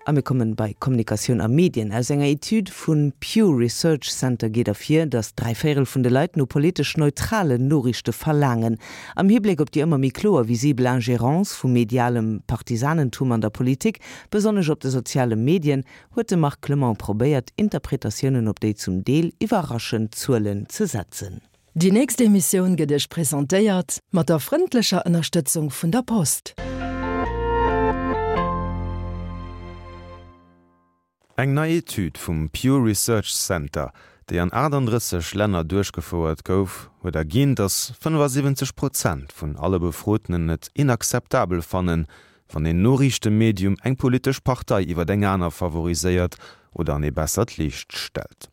A mir kommen bei Kommunikatioun a Medien. Aus enger Etüd vun Pew Research Center geet ervir, datt dräivéierel vun de Leit no politesch neutralen Noriichte verlaangen. Am Hibléck op déi ëmmer méi kloer visibel Ingérence vu medialem Partisanentum an der Politik, besonnesch op de soziale Medien, huet de Marc Clement probéiert, Interpretatiounen op déi zum Deel iwwerraschend Zuelen ze setzen. Déi nächst Emissioun gëtt Iech presentéiert mat der frëndlecher Ënnerstëtzung vun der Post. Eng nei Etüd vum Pew Research Center, déi an 38 Länner duerchgefouert gouf, huet erginn, datt 75 Prozent vun alle Befrotenen et inakzeptabel fannen, wann een Noriichtemedium eng politesch Partei iwwer eng aner favoriséiert oder an ee bessert Liicht stellt.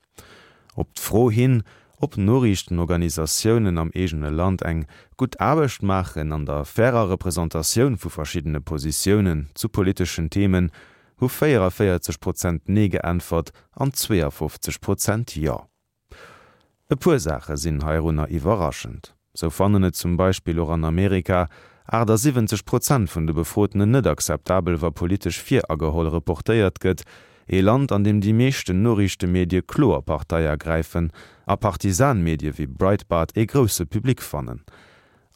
Op d'Fro hin, ob Noriichtenorganisatiounen am eegene Land eng gutt Aarbecht maachen an der fairer Representatioun vu verschiddene Positiounen zu politeschen Themen, hu 44 Prozent Nee geäntwert an 52 Prozent Jo. E puer Saache sinn heirunner iwwerraschend. Sou fannen et zum Beispill och an Amerika 78 Prozent vun de Befrotenen net akzeptabel, wa politesch virageholl reportéiert gëtt, ee Land, an deem déi meeschten Noriichtemedie kloer Partei ergräifen a Partisanmedie wéi Breitbart ee grousse Public fannen.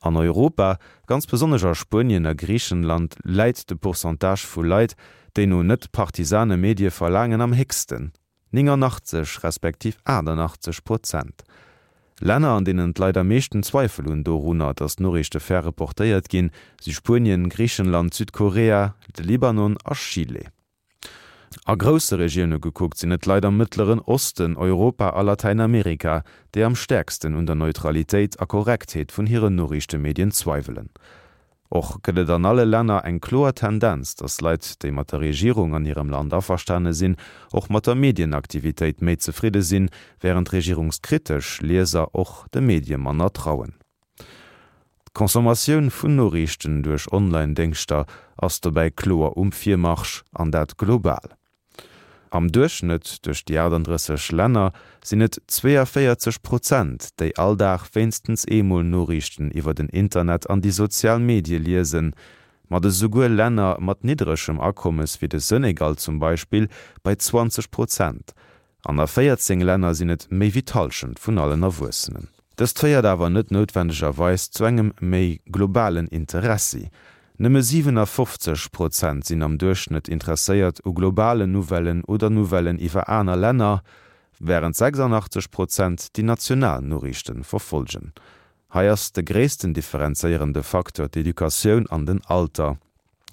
An Europa, ganz besonnesch a Spuenien a Griichenland, läit de Pourcentage vu Leit, déi no net-partisane Medie verlaangen, am héchsten. 89 respektiv 88 Prozent. Länner, an deenen d'Leit am meeschten Zweifel hunn dorunner, datt d'Noriichte fair reportéiert ginn, si Spuenien, Griichenland, Südkorea, de Libanon a Chile. A grousse Regioune gekuckt sinn et d'Leit am Mëttleren Osten, Europa a Latäinamerika, déi am stäerksten un der Neutralitéit a Korrektheet vun hiren Noriichtemedien zweiwelen. Och gëtt et an alle Länner eng kloer Tendenz, datt Leit, déi mat der Regierung an hirem Land averstane sinn, och mat der Medienaktivitéit méi zefridde sinn, wärend regierungskritesch Lieser och de Medie manner trauen. D'Consommatioun vun Noriichten duerch Online-Déngschter ass dobäi kloer um Virmarsch, an dat global. Am Duerchschnëtt duerch déi 38 Länner sinn et 42 Prozent, déi all Dag wéinstens eemol Noriichten iwwer den Internet an déi sozial Medie liesen. Mat esouguer Länner mat niddregem Akommes wéi de Senegal zum Beispill bei 20 Prozent. An a 14 Länner sinn et méi wéi d'Hallschent vun allen Erwuessenen. Dëst féiert awer net noutwendegerweis zu engem méi globalen Interessi. Nëmme 57 Prozent sinn am Duerchschnëtt interesséiert u globalen Nouvellen oder Nouvellen iwwer aner Länner, wärend 86 Prozent déi national Noriichte verfollgen. Hei ass de gréissten differenzéierende Facteur d'Educatioun an den Alter.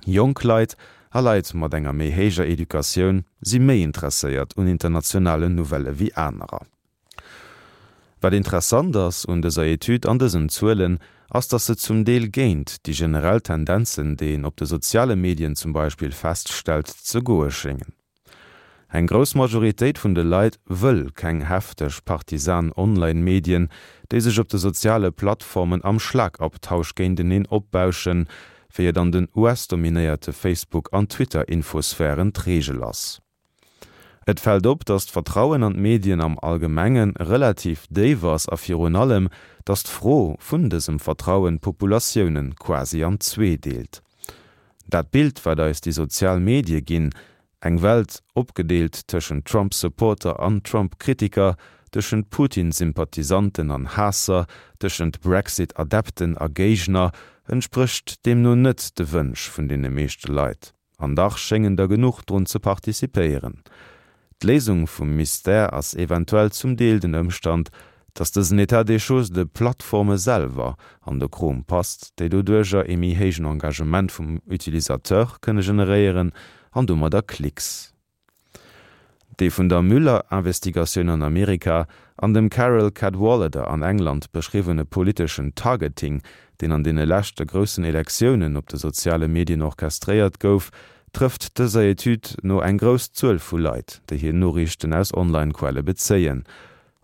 Jonk Leit a Leit mat enger méi héijer Educatioun si méi interesséiert un internationalen Nouvellë wéi anerer. Wat interessant ass un dëser Etüd an dësen Zuelen, ass datt se zum Deel géint déi generell Tendenzen, déi een op de soziale Medien zum Beispill feststellt, ze goe schéngen. Eng grouss Majoritéit vun de Leit wëll keng hefteg partisan Online-Medien, déi sech op de soziale Plattformen am Schlagabtausch géinteneen opbauschen, wéi et an den US-dominéierte Facebook an Twitter-Infosphären d'Reegel ass. Et fält op, datt d'Vertrauen an d'Medien am Allgemenge relativ déif ass a virun allem, datt d'Fro vun dësem Vertrauen d'Populatioune quasi an zwee deelt. Dat Bild, wat eis déi sozial Medie ginn, eng Welt opgedeelt tëschent Trump-Supporter an Trump-Kritiker, tëschent Putin-Sympathisanten an Haasser, tëschent Brexit-Adepten a Géigner, entsprécht deemno net de Wënsch vun deene meeschte Leit. An dach schéngen der genuch drun ze participéieren. D'Léisung vum Mystère ass eventuell zum Deel den Ëmstand, dass dësen État des choses de Plattforme selwer an de Krom passt, déi doduerjer ee méi héijen Engagement vum Utilisateur kënne generéieren an domadder Klicks. Dee vun der Mueller-Investigatioun an Amerika an dem Carole Cadwalladr an England beschriwwene politeschen Targeting, deen an deene leschte groussen Elektiounen op de soziale Medien orchestréiert gouf, trëfft dëser Etüd no eng grouss Zuel vu Leit, déi hir Noriichten aus Online-Quelle bezéien.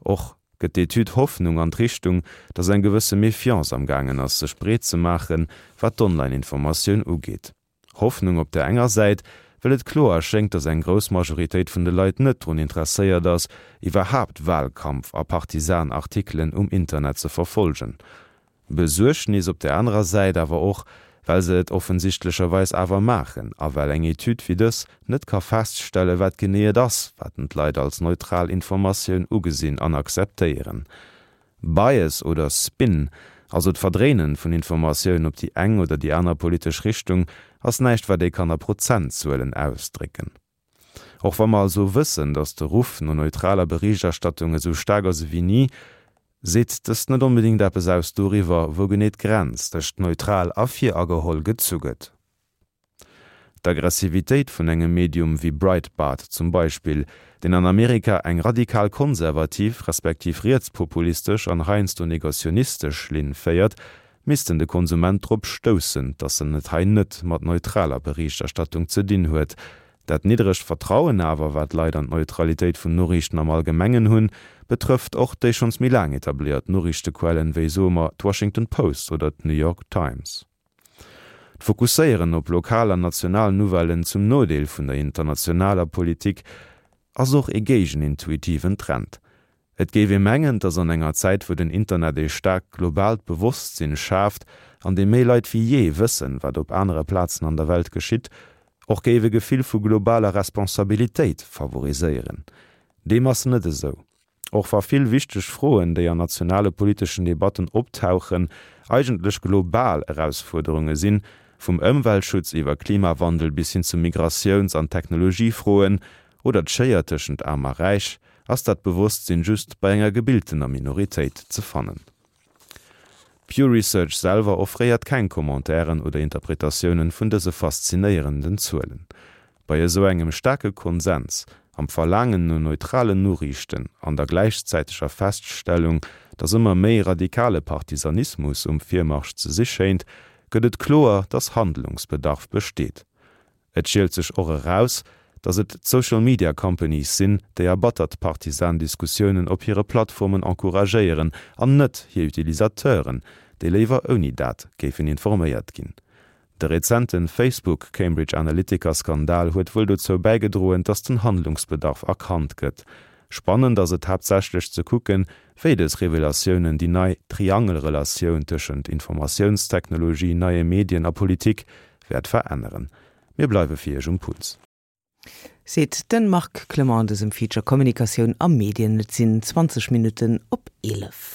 Och gëtt d'Etüd Hoffnung an d'Richtung, datt eng gewësse Méfiance am gaangen ass sech breet ze maachen, wat d'Online-Informatioun ugeet. Hoffnung op där enger Säit, well et kloer schéngt, datt eng grouss Majoritéit vun de Leit net drun interesséiert ass, iwwerhaapt Wahlkampf a Partisan-Artikelen um Internet ze verfolgen. Besuergnis op där anerer Säit awer och, Well se et offensichtlecherweis awer maachen a well eng Etüd wéi dës net ka feststellen, wat genee et ass, wat en d'Leit als neutral Informatioun ugesinn an akzeptéieren. Bias oder Spin, also d'Verdréinen vun Informatioun op déi eng oder déi aner politesch Richtung, ass näischt, wat ee kann a Prozentzuelen ausdrécken. Och wa mer also wëssen, datt de Ruff no neutraler Berichterstattung esou staark ass ewéi ni, seet dëst net onbedéngt eppes aus doriwwer, wou genee d'Grenz tëscht neutral a virageholl gezu gëtt. D'Aggressivitéit vun engem Medium wéi Breitbart zum Beispill, deen an Amerika eng radikal konservativ respektiv rietspopulistesch an heiansdo negationistesch Linn féiert, missten de Konsument drop stoussen, dass en et hei net mat neutraler Berichterstattung ze dinn huet. Dat niddregt Vertrauen awer, wat d'Leit an d'Neutralitéit vun Noriichten am Allgemengen hunn, betrëfft och déi schonns méi laang etabléiert Noriichtequellen, wéi, soe mer, d'Washington Post oder d'New York Times. D'Fokusséieren op lokal an national Nouvellen zum Nodeel vun der internationaler Politik ass och ee géigenintuitiven Trend. Et géif ee mengen, dass an enger Zäit, wou den Internet ee staarkt globaalt Bewosstsinn schaaft, an deem méi Leit wéi jee wëssen, wat op anere Plazen an der Welt geschitt, och géif e Gefill vu globaler Responsabilitéit favoriséieren. Deem ass net esou. Och wa vill wichteg Froen, déi an nationale politeschen Debatten optauchen, eigentlech global Erausfuerderunge sinn, vum Ëmweltschutz iwwer Klimawandel bis hin zu Migratiouns an Technologiefroen oder d'Schéier tëschent Aarm a Räich, ass dat Bewosstsinn just bei enger gebiltener Minoritéit ze fannen. Pew Research selwer offréiert keng Commentairen oder Interpretatiounen vun dëse faszinéierenden Zuelen. Bei esou engem staarke Konsens am Verlaangen no neutralen Noriichten an der gläichzäiteger Feststellung, datt ëmmer méi radikale Partisanismus um Virmarsch ze si schéint, gëtt et kloer, datt Handlungsbedarf besteet. Et schielt sech och eraus, datt et d'Social Media Companies sinn, déi erbattert partisan Diskussiounen op hire Plattformen encouragéieren, an net hir Utilisateuren, déi léiwer ouni dat géifen informéiert ginn. De rezente Facebook-Cambridge Analytica-Skandal huet wuel dozou bäigedroen, datt den Handlungsbedarf erkannt gëtt. Spannend ass et haaptsächlech ze kucken, wéi dës Revelatiounen déi nei Triangelrelatioun tëschent Informatiounstechnologie, neie Medien a Politik wäert veränneren. Mir bleiwe fir Iech um Puls. Seet de Marc Clement an dësem Feature Kommunikatioun a Medien. Et sinn 20 Minutten op 11.